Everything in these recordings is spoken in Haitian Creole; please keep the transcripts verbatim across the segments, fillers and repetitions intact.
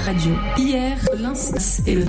Radio. Hier, lans e le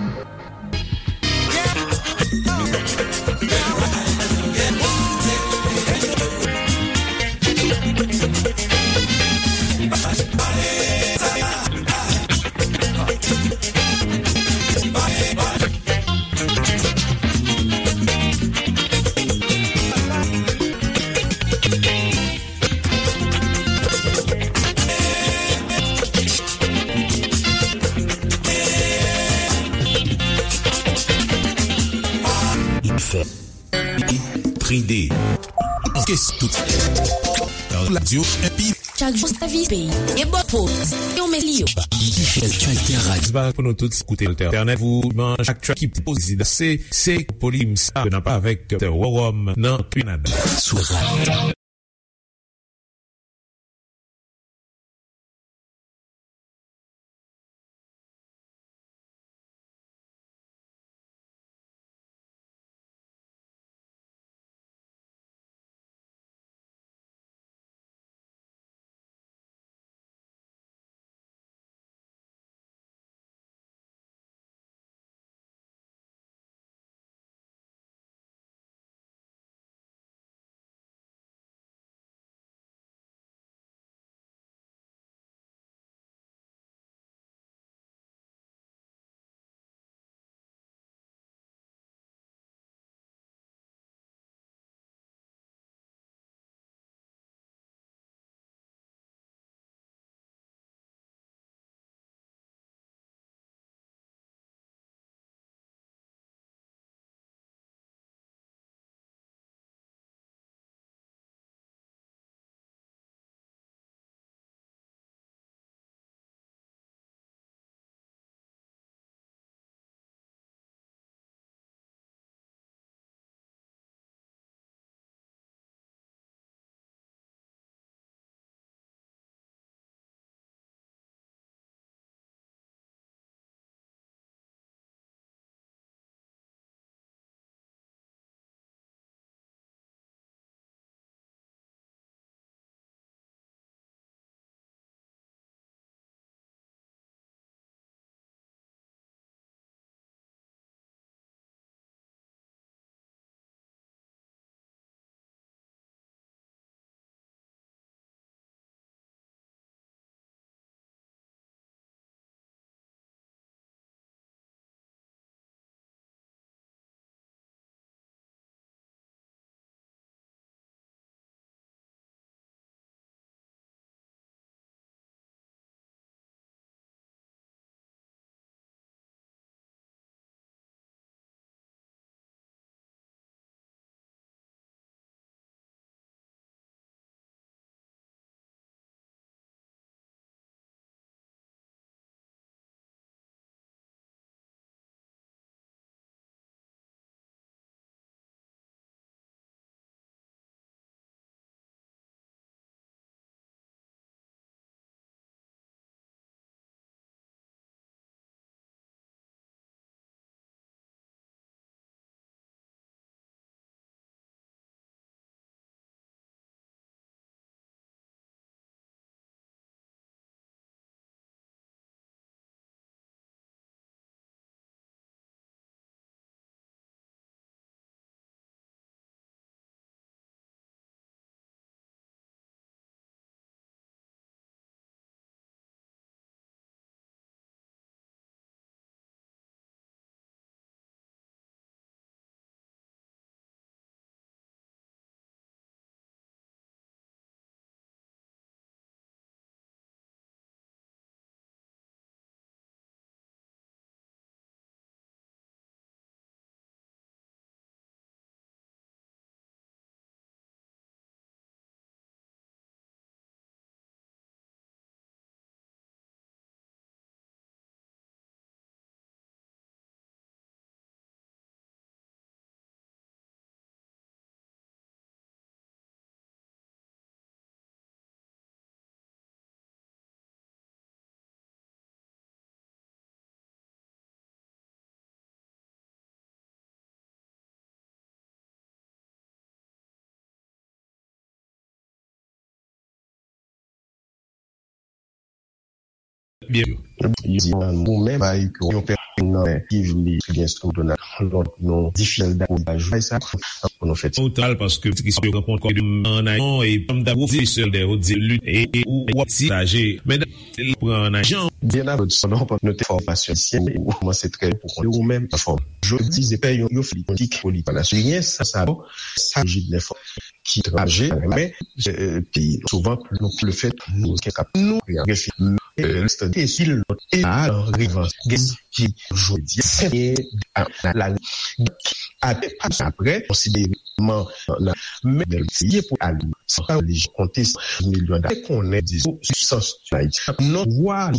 Tride. Kes tout. Radio M P. Chak jou sèvis peyi. E bò poz. Yo mesi yo. Alter Radio. Ba pou nou tout koute Alter Internet. Pou manch ak track ki pozi se se polim sa nan pa avèk Worom nan Kanada. Sou radio. Byen, yo di ou menm bay yon pèsonn nan men ki vle gen sou Donald Trump, non, difisil dakò a jway sa pou nou fè. Total, paske tris yo rankontre an ayon e pam da pwofesè de yo di lit e ou wap ti aje men pran an ajan. Byen avè sa non pa nou te fòmasyon syen ou kòmanse trè pou konn ou menm fòm. Jodi se pè yon yo fè politik politik nasyon sa sa jid nè fò ki trajè men peyi nou souvan pou nou le fèt nou kap nou refi listadi esil lòt e a revans gen ki jodi se la apre konsidere man la men bèl tiye pou ali sa pa lij konte milyon da konnen di sou sans non wa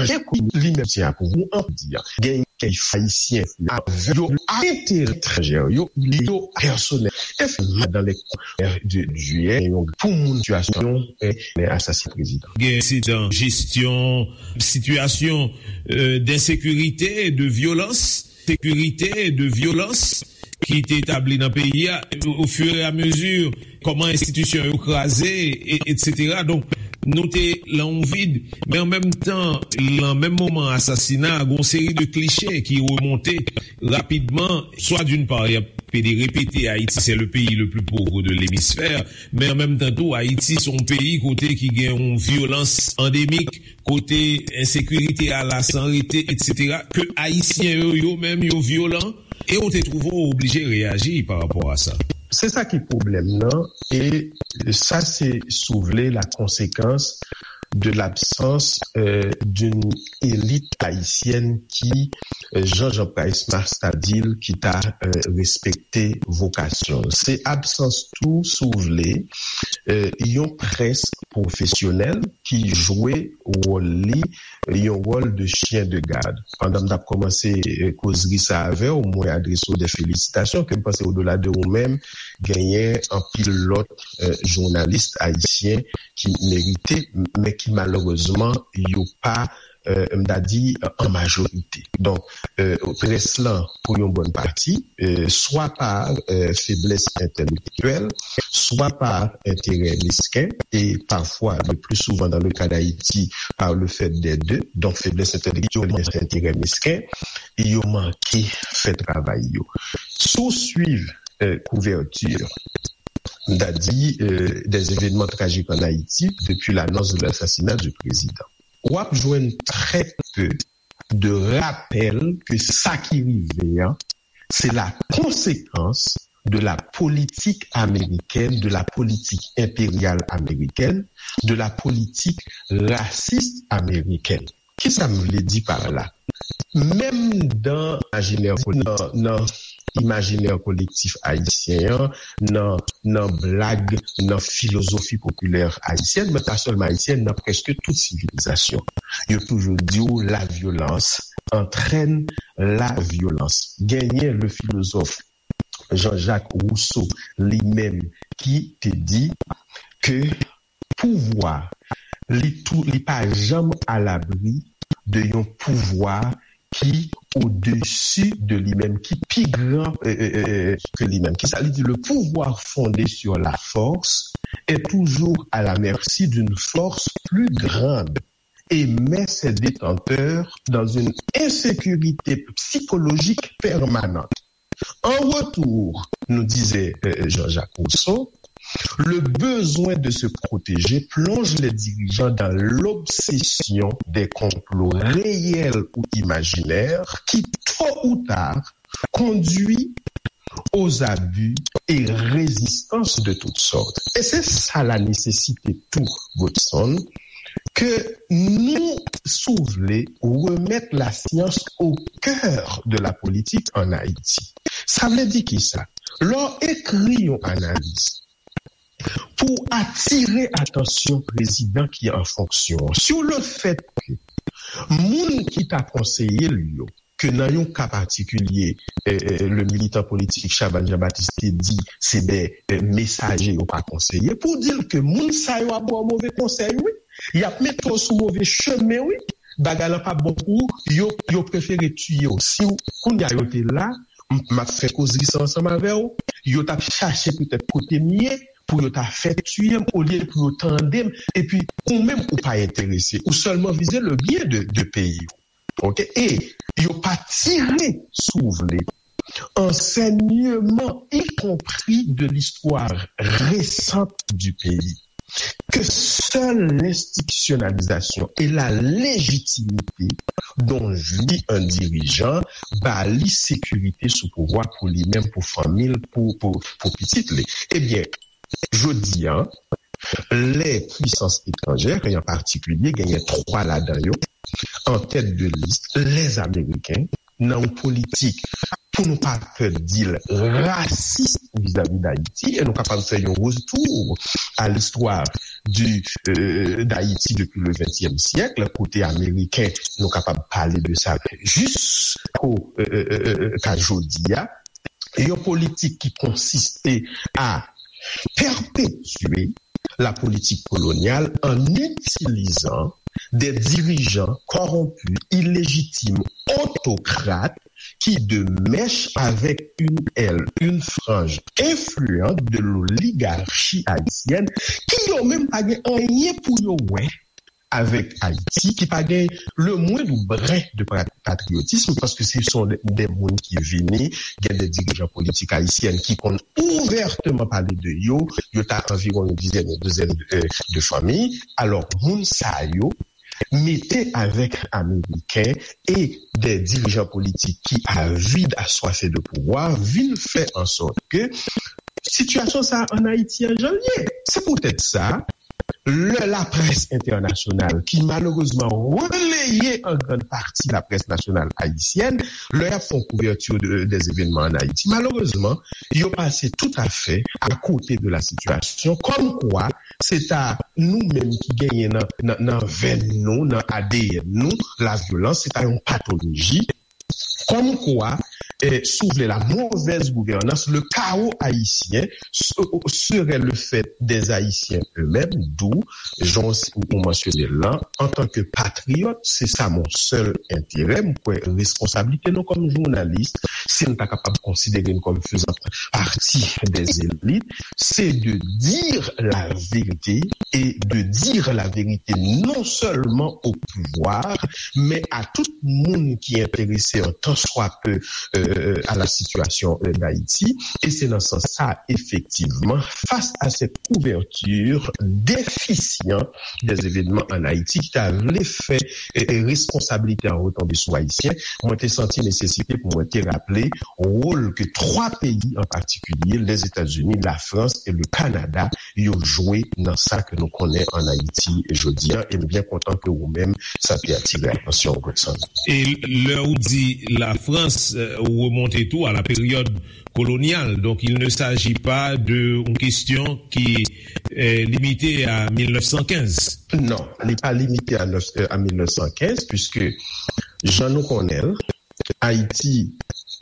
Jan kou li menm se akouvou an di a gen kèy ayisyen yo a enterè etranjè yo li yo pèsonèl e fè madan lè de jiyè yon pou moun sitiyasyon e asasin prezidan. Gen ensidan jesyon sitiyasyon densekirite de vyolans sekirite de vyolans ki te etabli nan peyi a ofiramezu kòman enstitisyon yo kraze etsetera donk nou te lan yon vid men an menm tan lan menm moman asasina gon seri de kliche ki remonte rapidman swa d'une part y ap pede repete ayiti se le peyi le pli pov de lemisfè men an menm tan tou ayiti se yon peyi kote ki gen yon vyolans andemik kote ensekirite a la san rete etsetera ke ayisyen yo yo menm yo vyolan e ou te twouve w oblije reyaji pa rapò a sa. Se sa ki pwoblèm nan e sa se si w vle la konsekans de l'absence d'une élite haïtienne ki Jean Jean Price Mars ta di l ki ta respekte vokasyon l. Se absans tou si w vle yon près pwofesyonèl ki jwe wòl li yon wòl de chyen de gad. Pandan m t ap kòmanse kozri sa avè w, mwen adrese w de felisitasyon ke m panse odola de ou menm, genyen anpil lòt jounalis ayisyen ki merite, men ki malerezman yo pa m ta di an majorite. Donk, près lan pou yon bòn pati, swa pa feblès entèlektyèl, swa pa enterè mesken, e pafwa, le pli souvan dans le cas d'Haïti, par le fait des deux, donk feblès entèlektyèl, enterè mesken, yo manke fè travay yo. Si w swiv kouvèti, m ta di, des événements tragiques en Haïti depuis l'annonce de l'assassinat du président. W ap jwenn très peu de rapèl ke sa ki rive an, se la konsekans de la politik amerikèn, de la politik enperyal amerikèn, de la politik rasis amerikèn. Kisa m vle di pa la? Menm dan imajinè nan nan imajinè kolektif ayisyen an, nan nan blag, nan filozofi popilè ayisyèn, men pa sèlman ayisyèn, nan prèske tout sivilizasyon. Yo toujou di w la vyolans antrèn la vyolans. Genyen le filozof Jean-Jacques Rousseau li menm ki te di ke pouvwa li tou li pa janm alabri de yon pouvwa ki odesi de li menm, ki pi gran ke li menm. Kisa li di? Le pouvoir fondé sur la force est toujours à la merci d'une force plus grande et met ses détenteurs dans une insécurité psychologique permanente. En retour, nous disait euh, Jean-Jacques Rousseau, le besoin de se protéger plonge les dirigeants dans l'obsession des complots réels ou imaginaires qui, tôt ou tard, conduit aux abus et résistances de toutes sortes. E se sa la nesesite tou, Godson, ke nou, si w vle, remèt lasyans o kè de la politik ann Ayiti. Sa vle di kisa? Lè w ekri yon analiz pou atire atansyon prezidan ki an fonksyon an sou le fèt ke moun ki ta konseye l yo, ke nan yon ka patikilye, eh, eh, le militan politik Chabannes Jean-Baptiste te di se de eh, mesaje, yo pa konseye, pou di l ke moun sa yo ap ba w move konsèy, wi. Y ap mete w sou move chemen, wi. Bagay lan p ap bon pou ou, yo, yo prefere tiye w. Si w, kounye a yo te la, m, m ap fè kozri sa ansanm avè w, yo t ap chache petèt kote m ye, pou yo ta fè tiye m, olye pou yo tande m, epi ou menm ou pa enterese, ou sèlman vize le byen de, de peyi w. Ok? E yo pa tire, si w vle, enseignement, y compris de l'histoire récente du pays, que seule l'institutionnalisation et la légitimité dont jouit un dirigeant ba li sekirite sou pouvwa pou li menm, pou fanmi l, pou, pou, pou pitit li. Ebyen, jodi a, lè pwisans etranjè, e an patikilye, genyen twa ladan yo, an tèt de lis, lèzameriken, nan yon politik, pou nou pa pè di l, rasis vizavi Dayiti, e nou kapab fè yon retou a listwa di, euh, Dayiti depi le ventyèm syèk, kote Ameriken, nou kapab pale de sa jisko, euh, euh, euh, euh, ka jodi a, yon politik ki konsiste a pèpetye la politique coloniale en utilisant des dirigeants corrompus, illégitimes, autocrates, qui, de mèche avec une aile, une frange influente de l'oligarchie haïtienne, ki yo menm pa gen anyen pou yo wè avèk Ayiti, ki pa gen le moindre brin de pa-, patriotisme, paske se son de, de moun ki vini, gen de dirijan politik ayisyen ki konn ouvèteman pale de yo, yo ta anviwon yon dizèn, yon dizèn de, de fanmi. Alò, moun sa yo, mete avèk Ameriken e de dirijan politik ki avid, aswafe de pouvwa, vin fè an sòt ke sitiyasyon sa a ann Ayiti an jan l ye. Se poutèt sa, lè laprès entènasyonal, ki malerezman releye an grann pati laprès nasyonal ayisyèn, lè y ap fè yon kouvèti de, des événements en Haïti, malerezman, yo pase toutafè akote de la sitiyasyon, kòmkwa se ta nou menm ki genyen nan, nan, nan venn nou, nan A D N nou, lavyolans, se ta yon patoloji. Kòmkwa, eh, si w vle, la mauvaise gouvernance, le chaos haïtien se-, serait le fait des Haïtiens eux-mêmes, d'où, jan w, ou mansyone l lan, antanke patriyòt, se sa mon sèl enterè. M kwè responsablite nou kòm jounalis, si n ta kapab konsidere n kòm faisant partie des élites, c'est de dire la vérité et de dire la vérité non seulement au pouvoir, mais à tout moun ki enterese an tan swa peu euh, à la situation euh, d'Haïti. Et c'est dans ce sens-là, effectivement, face à cette couverture déficiente des événements en Haïti, ki ta vle fè euh, euh, responsabilité an retombe sou Ayisyen, mwen te santi nesesite pou mwen te raple wòl ke twa peyi an patikilye, Lèzetazini, Lafrans e le Kanada, yo jwe nan sa ke nou konnen ann Ayiti jodi a. E m byen kontan ke ou menm, sa te atire atansyon w, Godson. E lè ou di Lafrans, euh, ou remonte tou à la période coloniale. Donc, il ne s'agit pas de une question qui est limitée à mil nèf san kenz. Non, li pa limite a, nèf, euh, a mil nèf san kenz, puisque jan nou konnen l, Haïti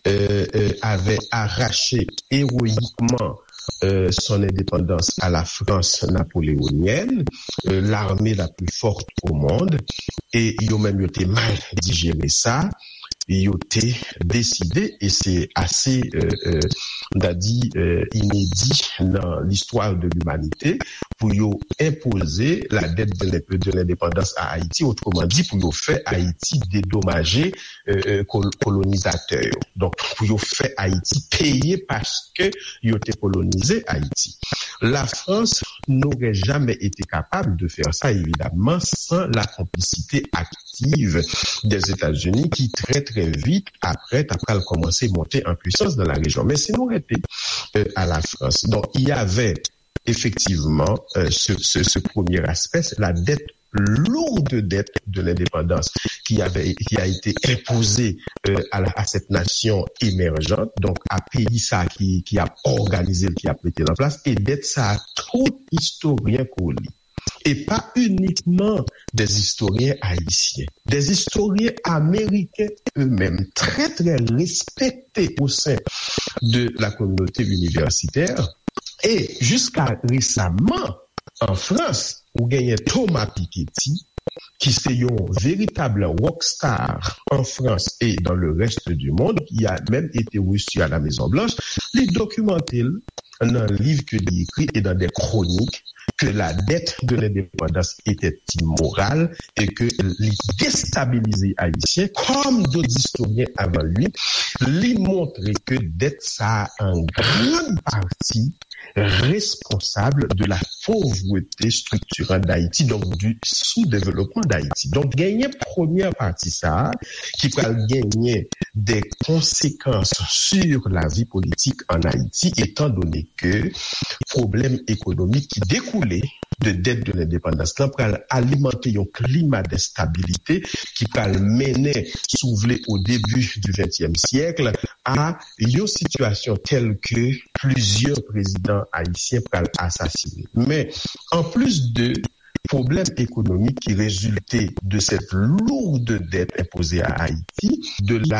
euh, euh, avait arraché héroïquement euh, son indépendance à la France napoléonienne, euh, l'armée la plus forte au monde, et yo menm yo te mal digéré sa. yo te deside, e se ase, euh, euh, m ta di, euh, inedi nan listwa de limanite, pou yo enpoze la dette de l'in-, de l'indépendance à Haïti, otreman di, pou yo fè Ayiti dedomaje, euh, euh, kol-, kolonizatè yo. Donk, pou yo fè Ayiti peye paske yo te kolonize Ayiti. La France n'aurait jamais été capable de faire ça, évidemment, sans la complicité active des États-Unis, qui très, très vite après, après, a commencé à monter en puissance dans la région. Mais si nous restons, euh, à la France, donc il y avait effectivement, euh, ce, ce, ce premier aspect, c'est la dette, lourde dette de l'indépendance qui avait, qui a été imposée, euh, à la, à cette nation émergente, donc à pays ça qui, qui a organisé, qui a metté en place, et dette ça tout historien qu'on lit. Et pas uniquement des historiens haïtiens, des historiens américains eux-mêmes, très, très respectés au sein de la communauté universitaire. Et jusqu'à récemment, en France, ou genyen Thomas Piketty, ki se yon veritab rockstar en France et dans le reste du monde, qui a même été reçu à la Maison Blanche, li dokimante l nan liv ke li ekri e nan de kronik ke la dette de l'indépendance était immorale et que li destabilize Ayisyen, comme d'autres historiens avant lui, li montre ke dette sa a en grande partie responsable de la pauvreté structurante d'Haïti, donc du sous-développement d'Haïti. Donc, genyen premyè pati sa a, ki pral genyen des conséquences sur la vie politique en Haïti, étant donné que problèm ekonomik ki dekoule de dette de l'indépendance lan pral alimante yon klima de stabilité ki pral mennen, si w vle, au début du vingtième siècle, a yon sitiyasyon tèl ke plizyè prezidan ayisyen pral asasinen. Men, an plis de pwoblèm ekonomik ki rezilte de cette lourde dette imposée à Haïti, de la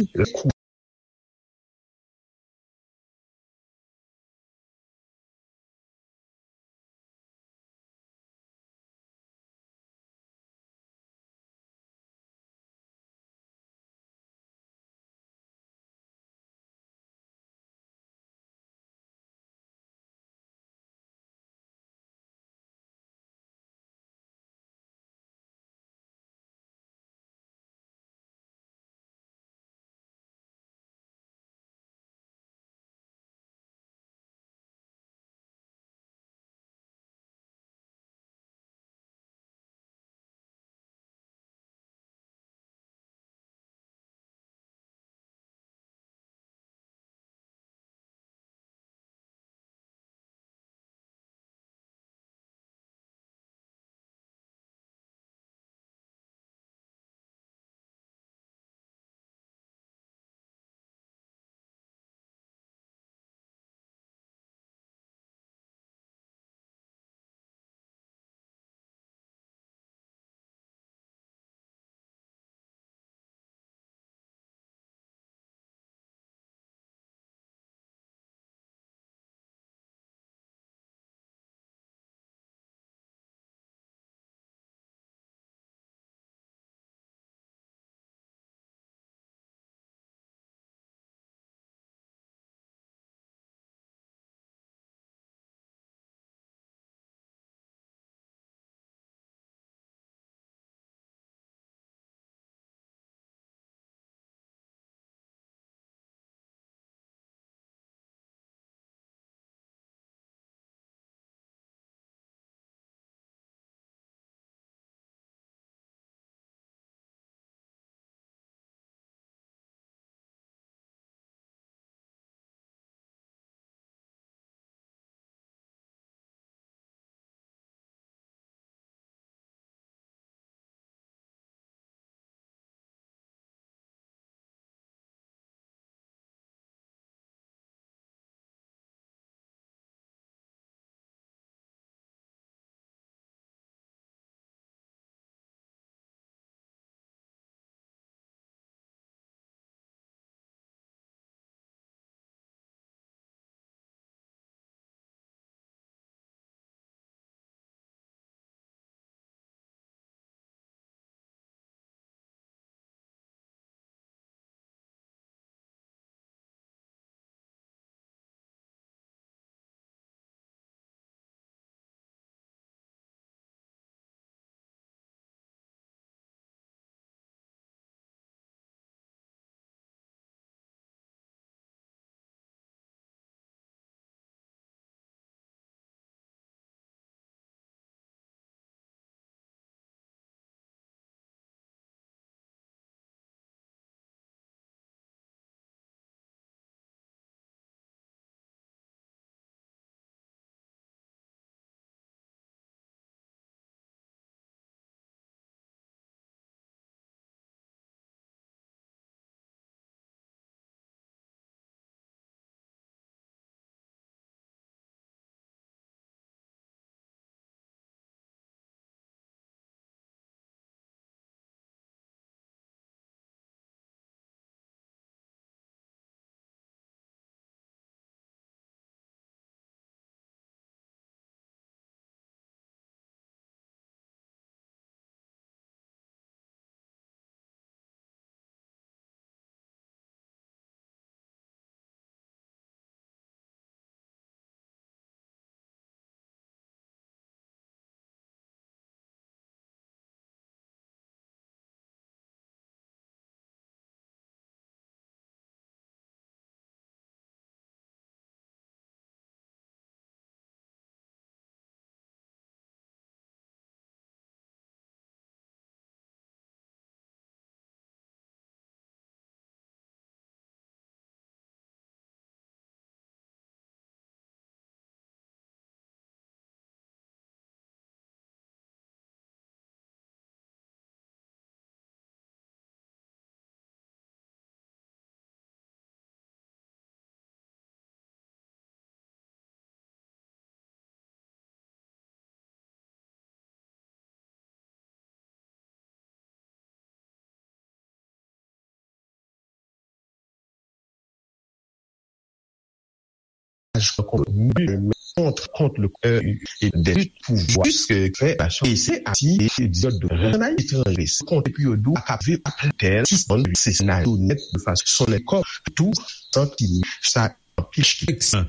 kont, kont, kont le, euh, e de lit pou vwa, jiske fè nasyon ese ati e di yo de ranay etranjre, se kont epi yo dou akap viv ap tèl, sispann viv se senaryo nèt de fason nèt kò tou santi sa anpil ki sa.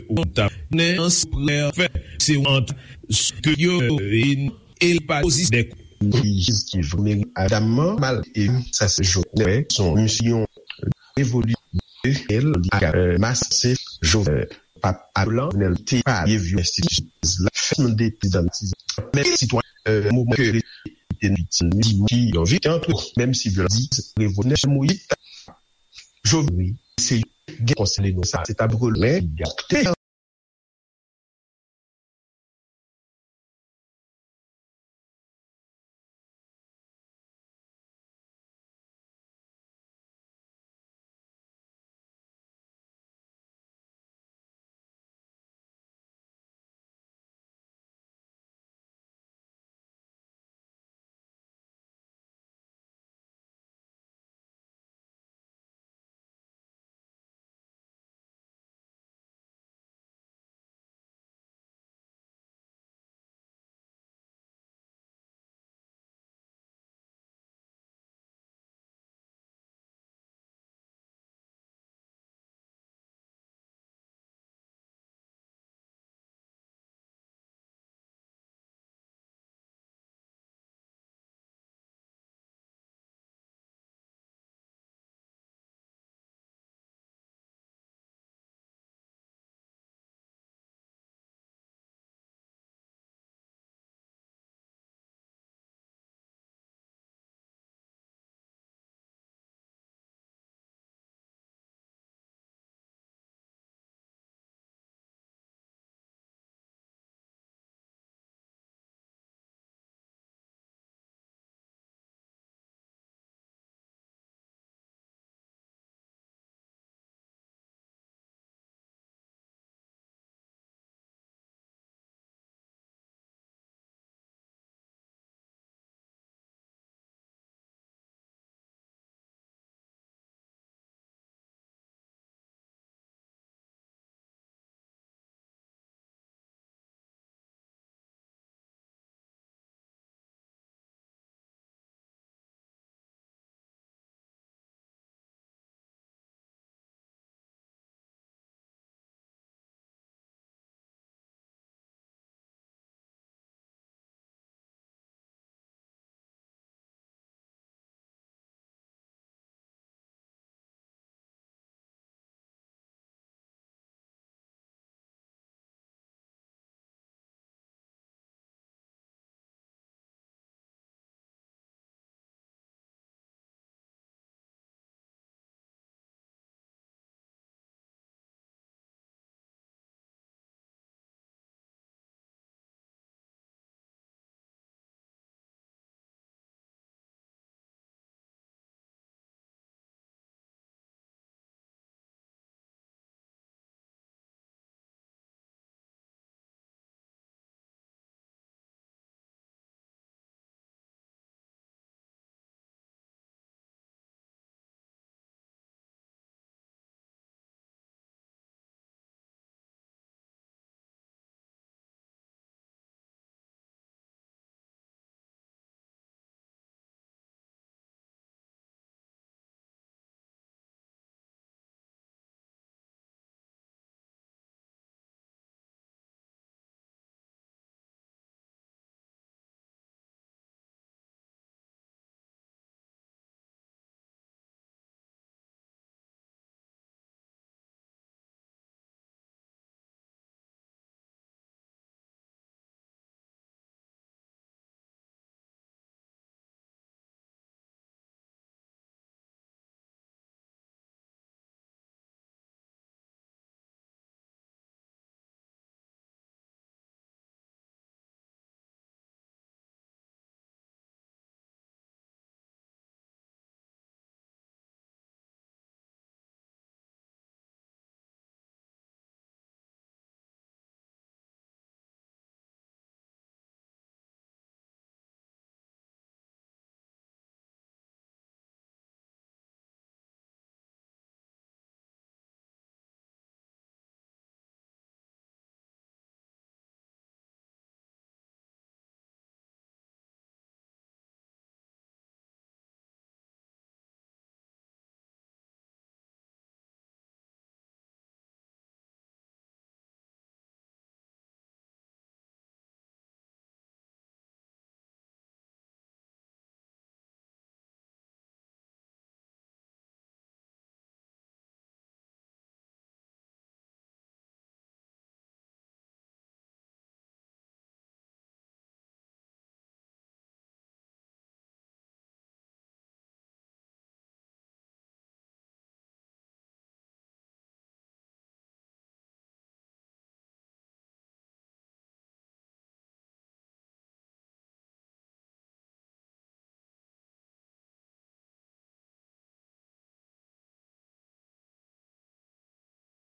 Ou ta nen an se prè fè, se ant ke yo e pa osi de jiz ki vre adamman mal e sa se jòt nè son misyon evoli el ak mas se jòt pap alan nèl te pa ye vyo enstitisyon la fèt mande prezidan men sitwa moman ke te viktim di ki yon viktim antre menm si vyo di revolisyon moyiz jovni se gen konsène nou sa se ta bril men gate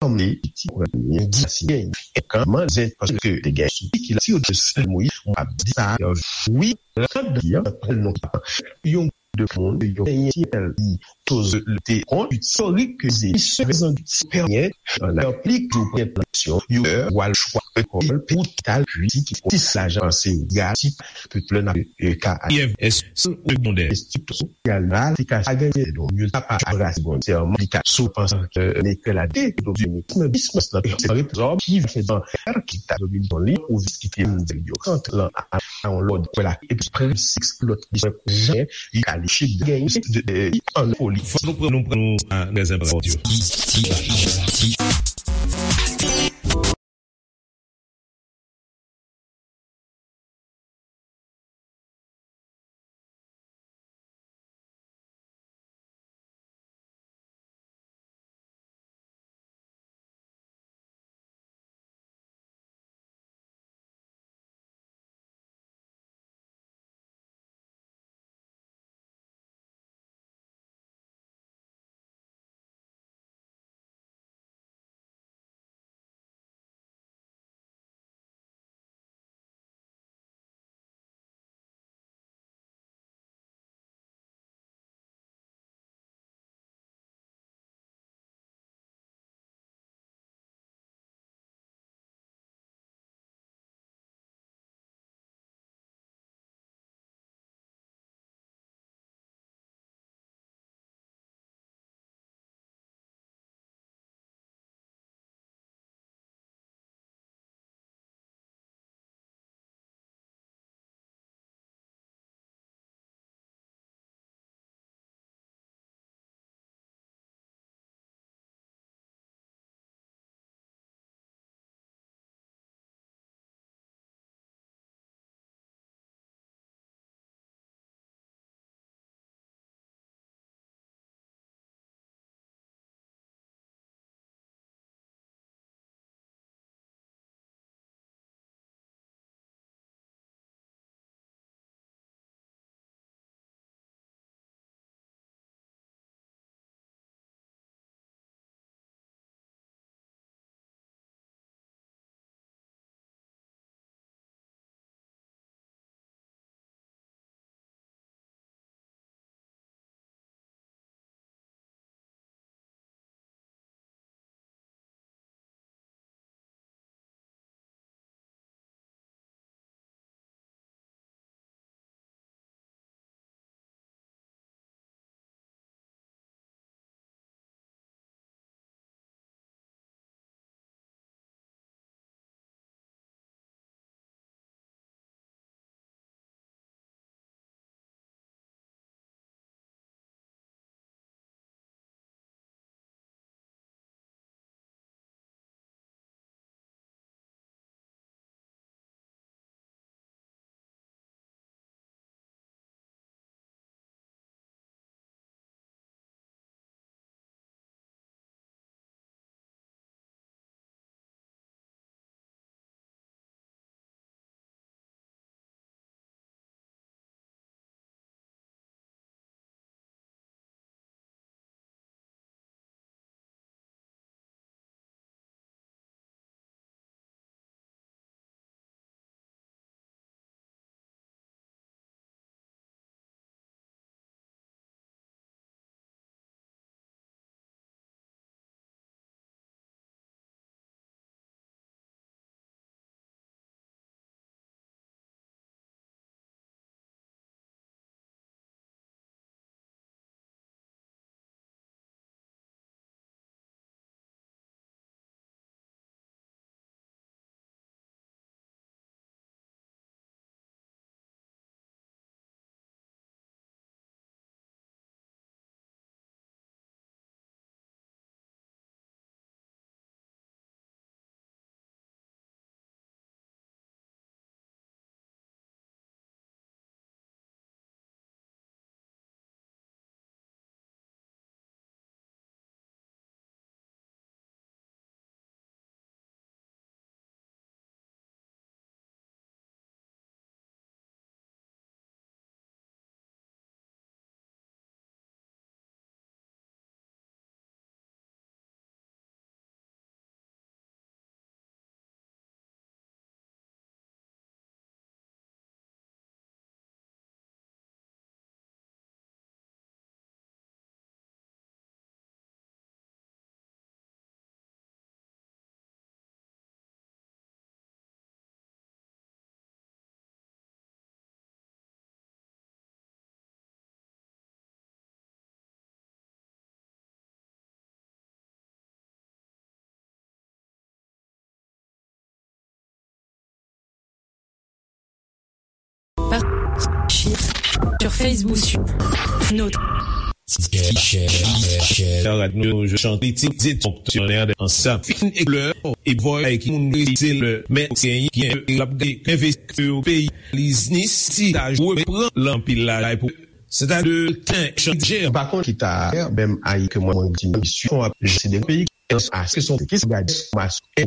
Anmle, ti pran yon di si gen yon kanman zen paske te gen sou ki la ti yo de sel mouyi mwen ap di sa wi rad yon pran non yon de moun yon enyen ti el li toz te kont istorik ke ze se prezan ti pèmyen an aplik yo pran aksyon yo wal chwa ekol pou tal wi ti ki ti lajan se gratis Pèp la nan ka IFS segondè. Estrikti sosyal la, se ka sa gen don, yo ta pa abrase bon, se an li ka sou panse ke lekòl la de domine nan bismas la, se pa rete zòb ki fè dan ki ta domine li, ou vis ki te mdel yo, kant lan a yon lòd, kwè la, epi prensip lòt li jan, li ka li chit gen, de, de, an foli. Fò nou pran, nou pran, nou, a, lèzènpòt yo. Sur Facebook, sur notre Radyo Chante ti di fonksyonè ansanm fin e lè e vòy ki moun se lè men se gen l ap gen envesti yo peyi liznis ti ta jwe pran lanpil la pou se ta de ten chanjè. Pa konn ki ta menm ayi ke mwen mwen di misyon ap jese de peyi ki an aske son ki se gade mas e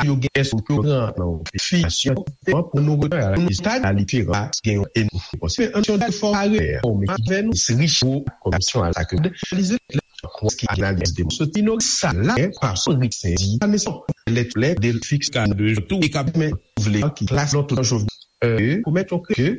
yo gen èske yo pran nan fiyasyon pou nou retan a la lista a li fera gen yon e nou konsi men an yon dal fò a rè o men ki vè nou se richo komisyon a la ke de analize lè kwas ki analize de soti nou sa la pa son rik sendi a men son lè lè de fiks ka de tou e ka men vle ki klas non tout an jovni pou mèt yon ke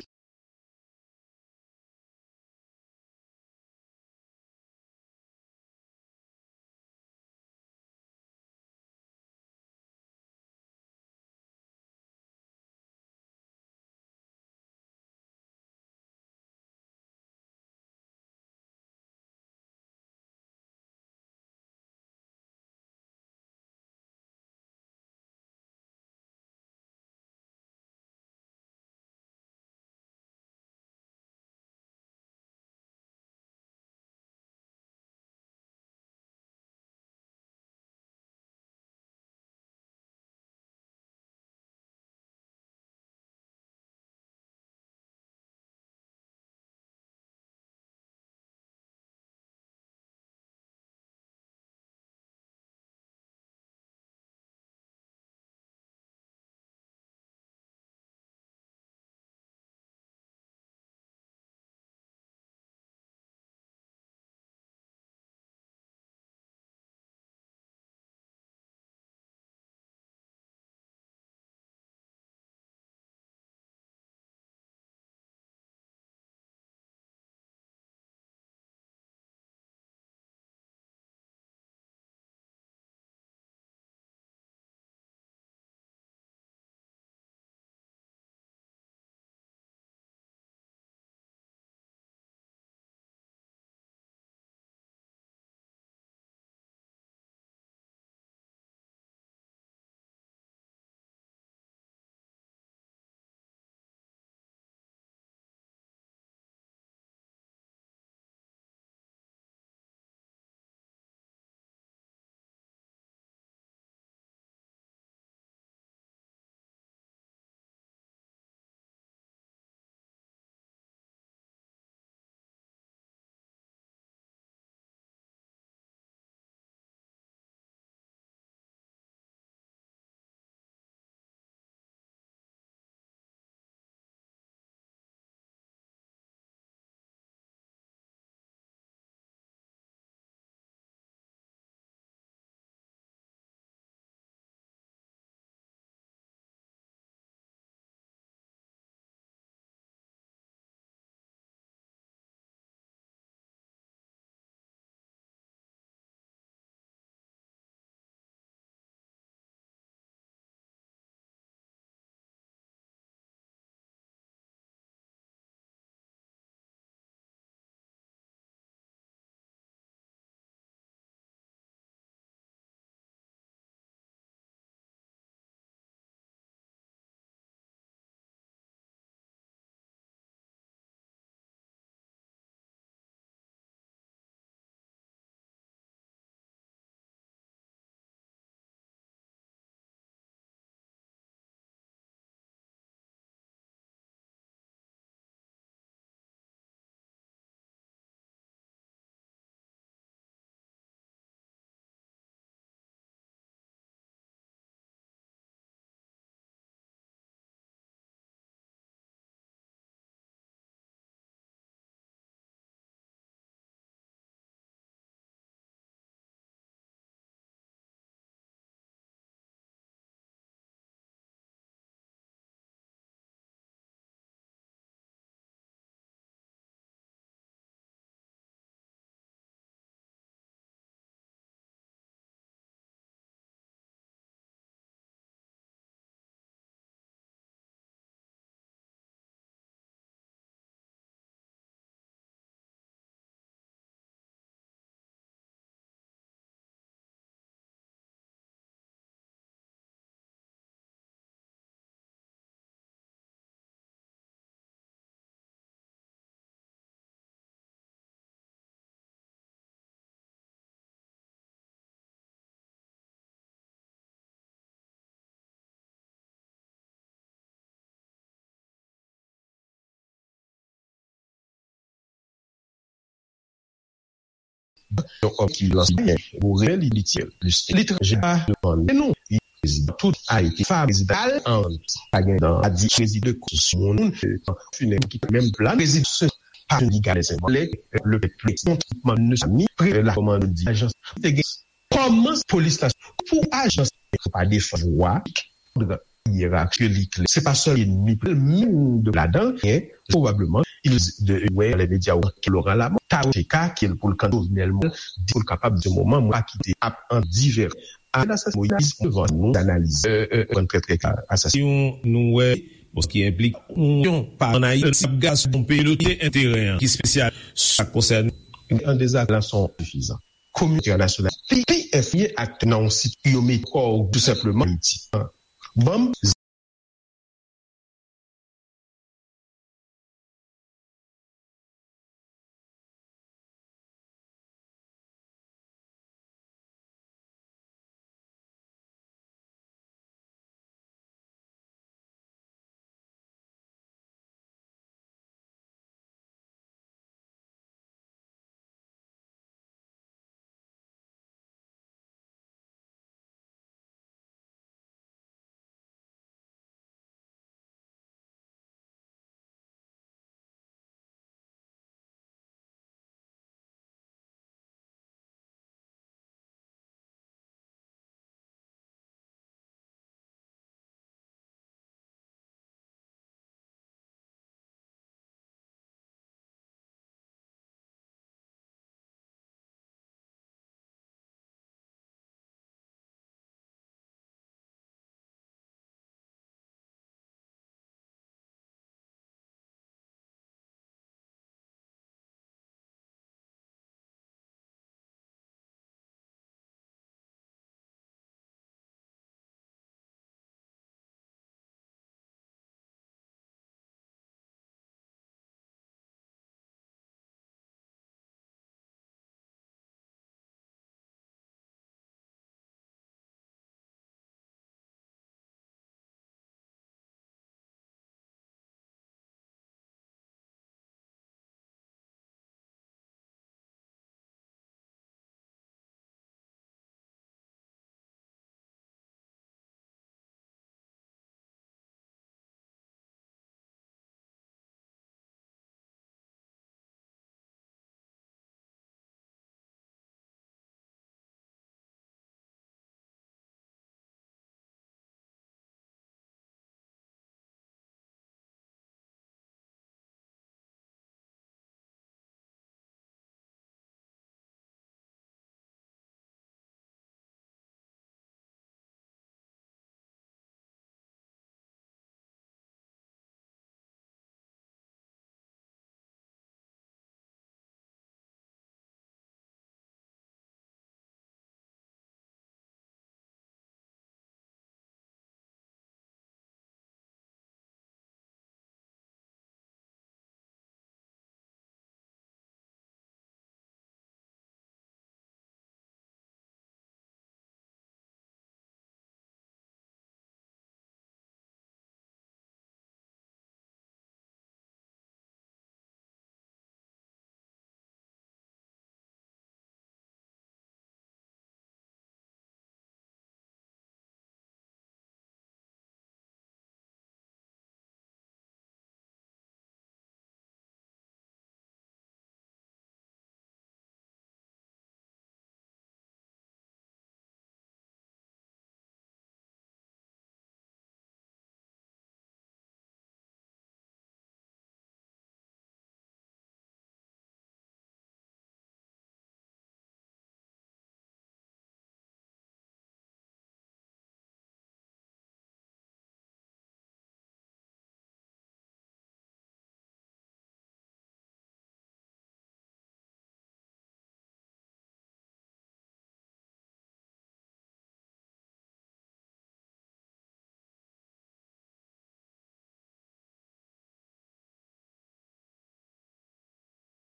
Yon òm ki lanse byen, pou rele li, li tire plis. Li tranje a devan nou. Prezidan tout Ayiti, fa prezidan al an, pa gen dan, a di prezidan de kous moun, finen ki menm plan, prezidan se pa yon giga les le pèp, le pèp, non, tout moun ne sa ni, pre la kòman di, ajans, te gen, kòman polis la, pou ajans, pa defwa, yerarki li klè. Se pa sèl enmi, menm de ladan, hein, probablement, il de, ouais, les médias, Laurent Lamothe, Taro T K, ki pou le kan Jovenel Moïse, di pou l kapab di moman, mwen pa kite ap an divè. Asasin Moïse, devan nou, analize, euh, euh, trè, trè klè, asasin. Yon nou wè, bon, ki enplike yon pa an Ayiti, ap gas yon peyi lote enterè, ki espesyal, sa konsène. An dezak, la son sifizan. Kominote entènasyonal, pi, pi enfye aktè nan yon sit yo met kò tou senpleman Ayiti. Ban m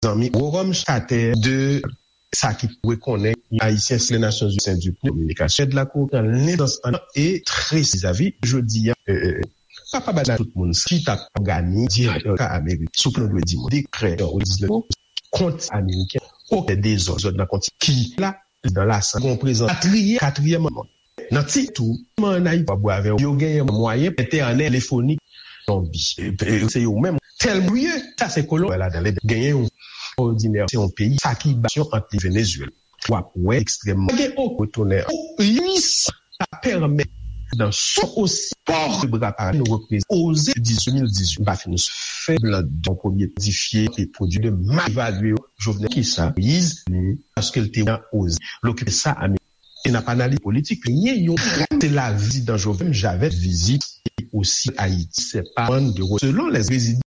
Zanmi Rome Chater de sa ki rekonnen Ayisyen se Nasyonzini sen di pou kominikasyon de la kominikasyon lendans an e tresi zavi jodi a. Papa bana tout moun ki t ap òganize direktè ka Amerik sou plan dwe di moun dekrè o diznèf kont ameriken okenn dezòd nan kontinans ki la, prezidan Lasann gon prezans katriyè, katriyè manm. Nan ti tou, an Ayiti, pa bwè avè yo genyen mwayen entènèt telefonik zonbi. Se yo menm. Tèlman ye, sa se kolon ladan. Genyen yon òdinè, se yon peyi, sa ki basyon ant li Venezuela. W ap wè ekstrèmman. Pa gen okenn retounen. Sa pèmèt nan son osi pòr bra pa nou reprezante oze di mil dizuit, pa fin fè blan de premye modifye e pwodui de mal evalye yo. Jovenel ki sa? Moïse, paske l te oze l okipe sa. E n ap analize politik, li ye yon, se la vizit dan Jovenel Javè, vizit osi Ayiti, se pa de selon les rezidan.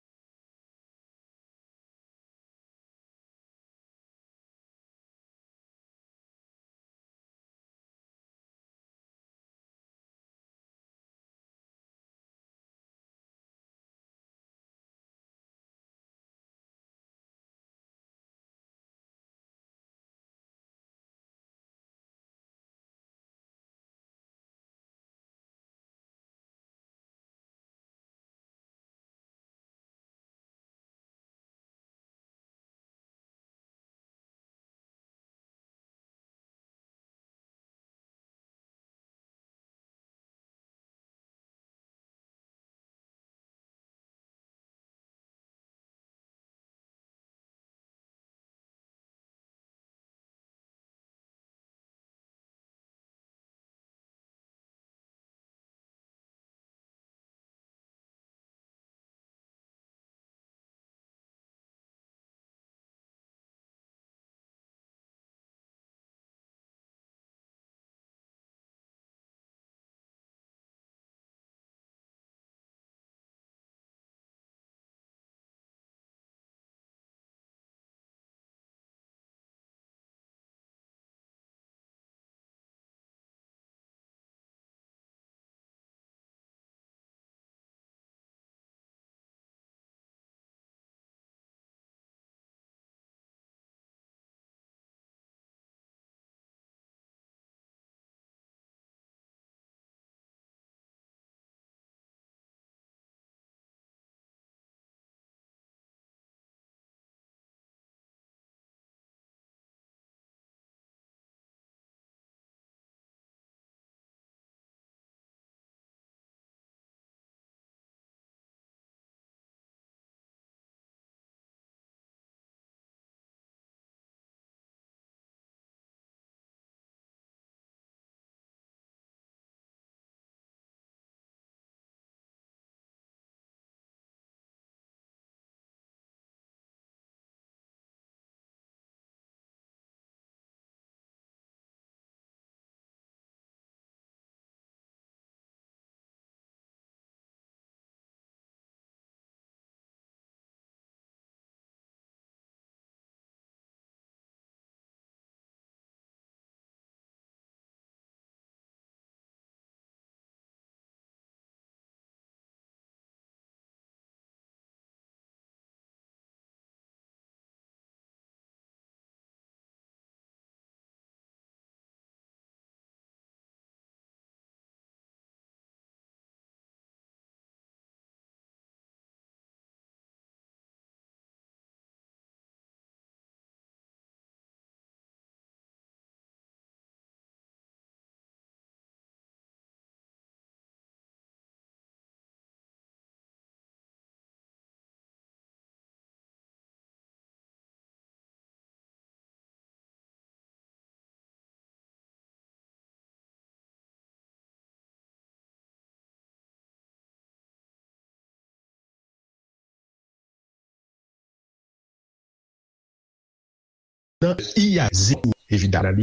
Nan I A Z, evidaman,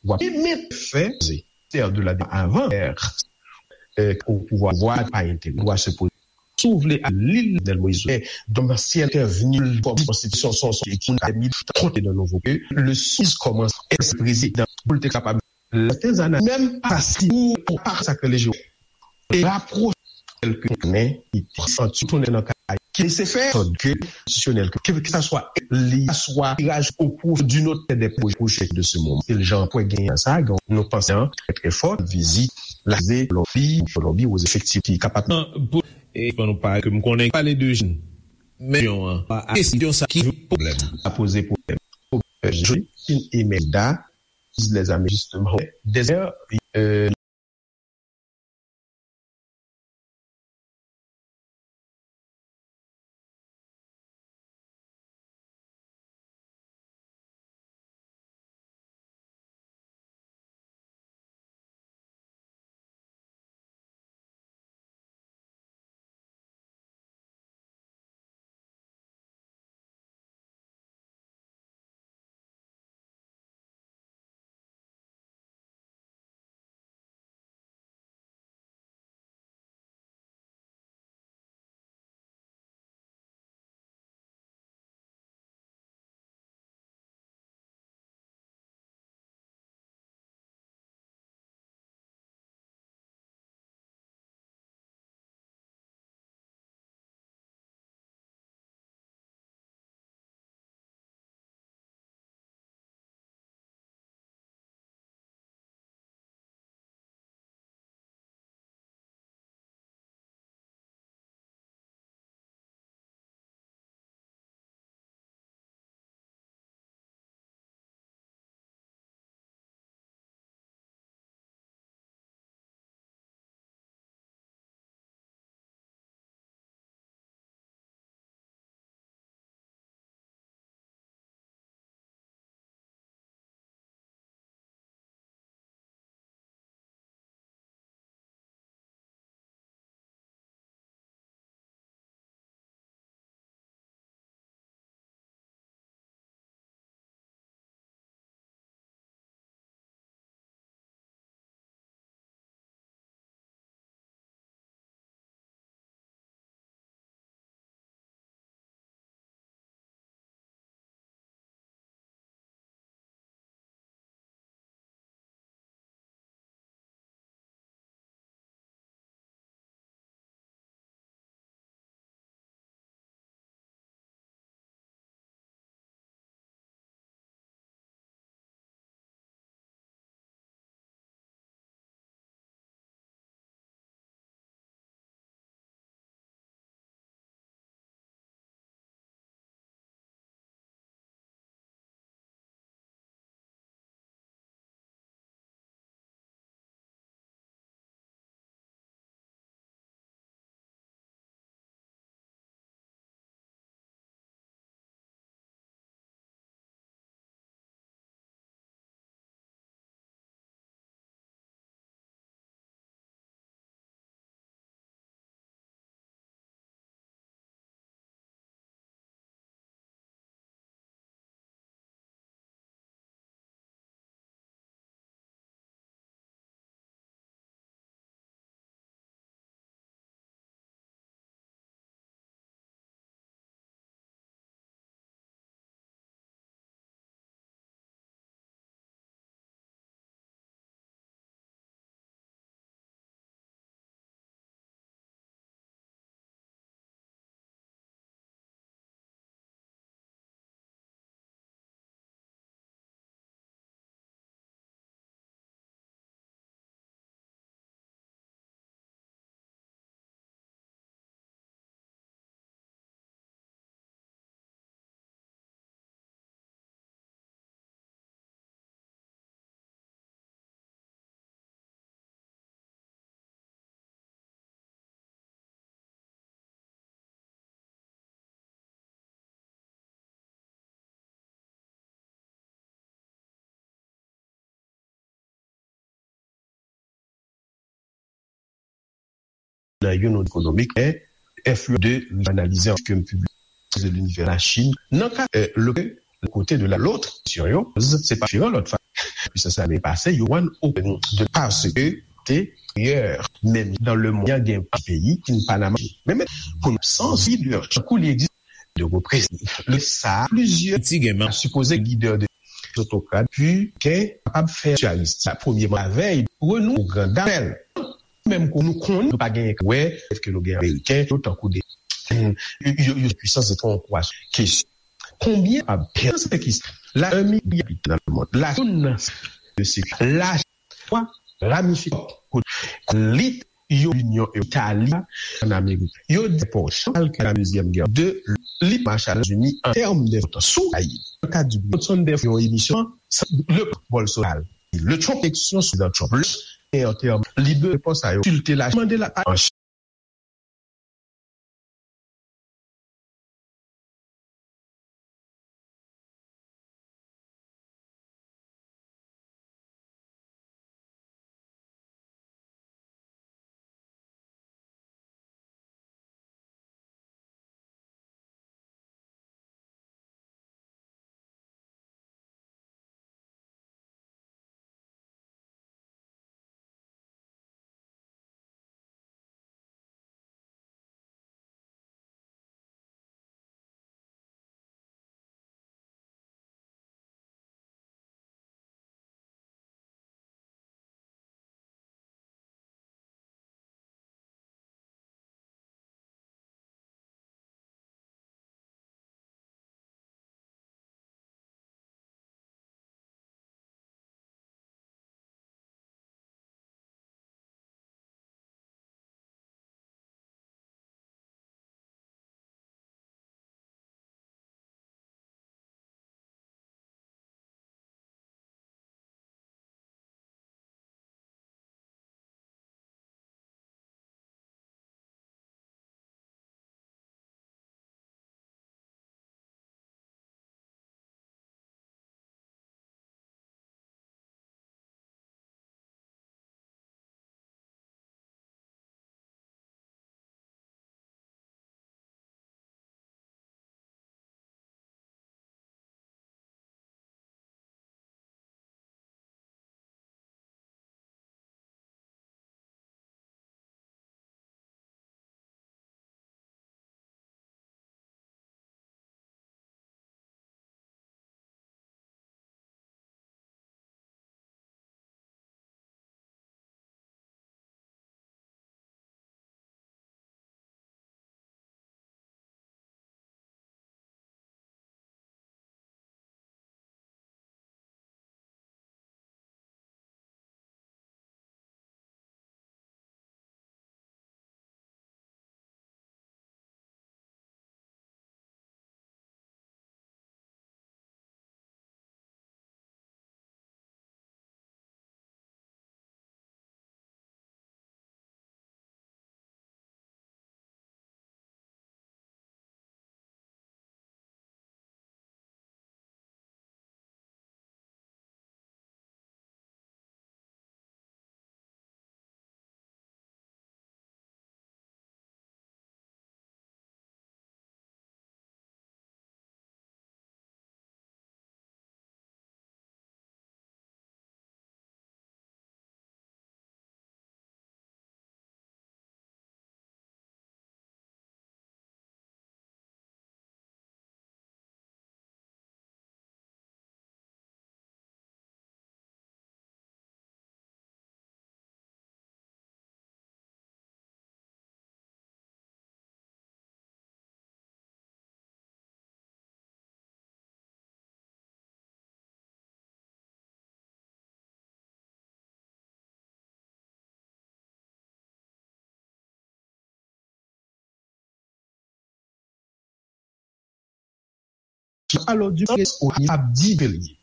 w ap menm fè, de la avan, euh, au pouvoir, pouvoir pa enterese, dwa se poze. Si w vle al li Jovenel Moïse, donk ansyen entèvni kòm konstitisyon, son, son, son, konte nan nouvo ke le swiz kòmanse èske prezidan pou l te kapab Lè te zana menm pa si ou pou pa sa ke leje e rapwoche kèlke men ki te santi tounen nan kay ki se fè sòt ke konstitisyonèl ke ke sa swa li swa tiraj o pwofi d'une autre des projets de ce moment. Se jan pwè genyen sa gen nou panse an trè trè fò vizit la ze Kolonbi Kolonbi o efektif ki kapab. Pou e pou nou pa ke m konnen pale de jèn men yon an pa kesyon sa ki pwoblèm. Sa poze pwoblèm. euh, Jolie, une Imelda, les amis, justement. Des, euh, Nan youn ekonomik, men enfliyans de analize an ke m pibliye de l'univers la Chine. Nan ka, euh, le, le côté de la, l'autre, question, yo, se pa diferan lòt fwa. Puisans lame pase, yo wan open de parce que te hier, menm dans le monde, gen peyi ki n pa nan mache. Men, men, pou nou, sans leader, tankou li egziste de reprezantan. Le sa, plizyè ti gen a sipoze lidè de otokrat, pi ke kapab fè sosyalis. Sa premye lavèy, renou gran dapèl. Menm kou nou konn, nou pa gen wè, ke nou gen Ameriken, yo tankou de, yo, yo, yo pwisans etranje. Kesyon. Konbyen pa pèn se ki la, un milya abitan nan le mond. La, nan de se la, twa, ramifikasyon, lit, yo, Linyon Itali, an Amerik. Yo di pòch, al ke la dezyèm gè de li Marshall États-Unis an tèm de sou Ayiti. Nan kad di Johnson de yon emisyon, le Bolsonaro, le Trump, eleksyon sou Donald Trump. Le, e an tèm, li de repons a yo, filte la, mande la, an Alò, di presko ap di ke l ye.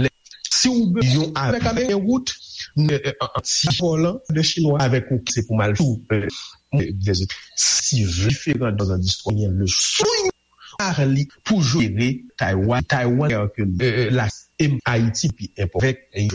Lè, si w be yon avèk avèk yon wout, ne, an ti pòlan de chinwa avèk ou se pou mal sou, si vle diferan dan zan distwa, le sou Charlie pou jere Taiwan, Taiwan ke la Ayiti pi enpò avèk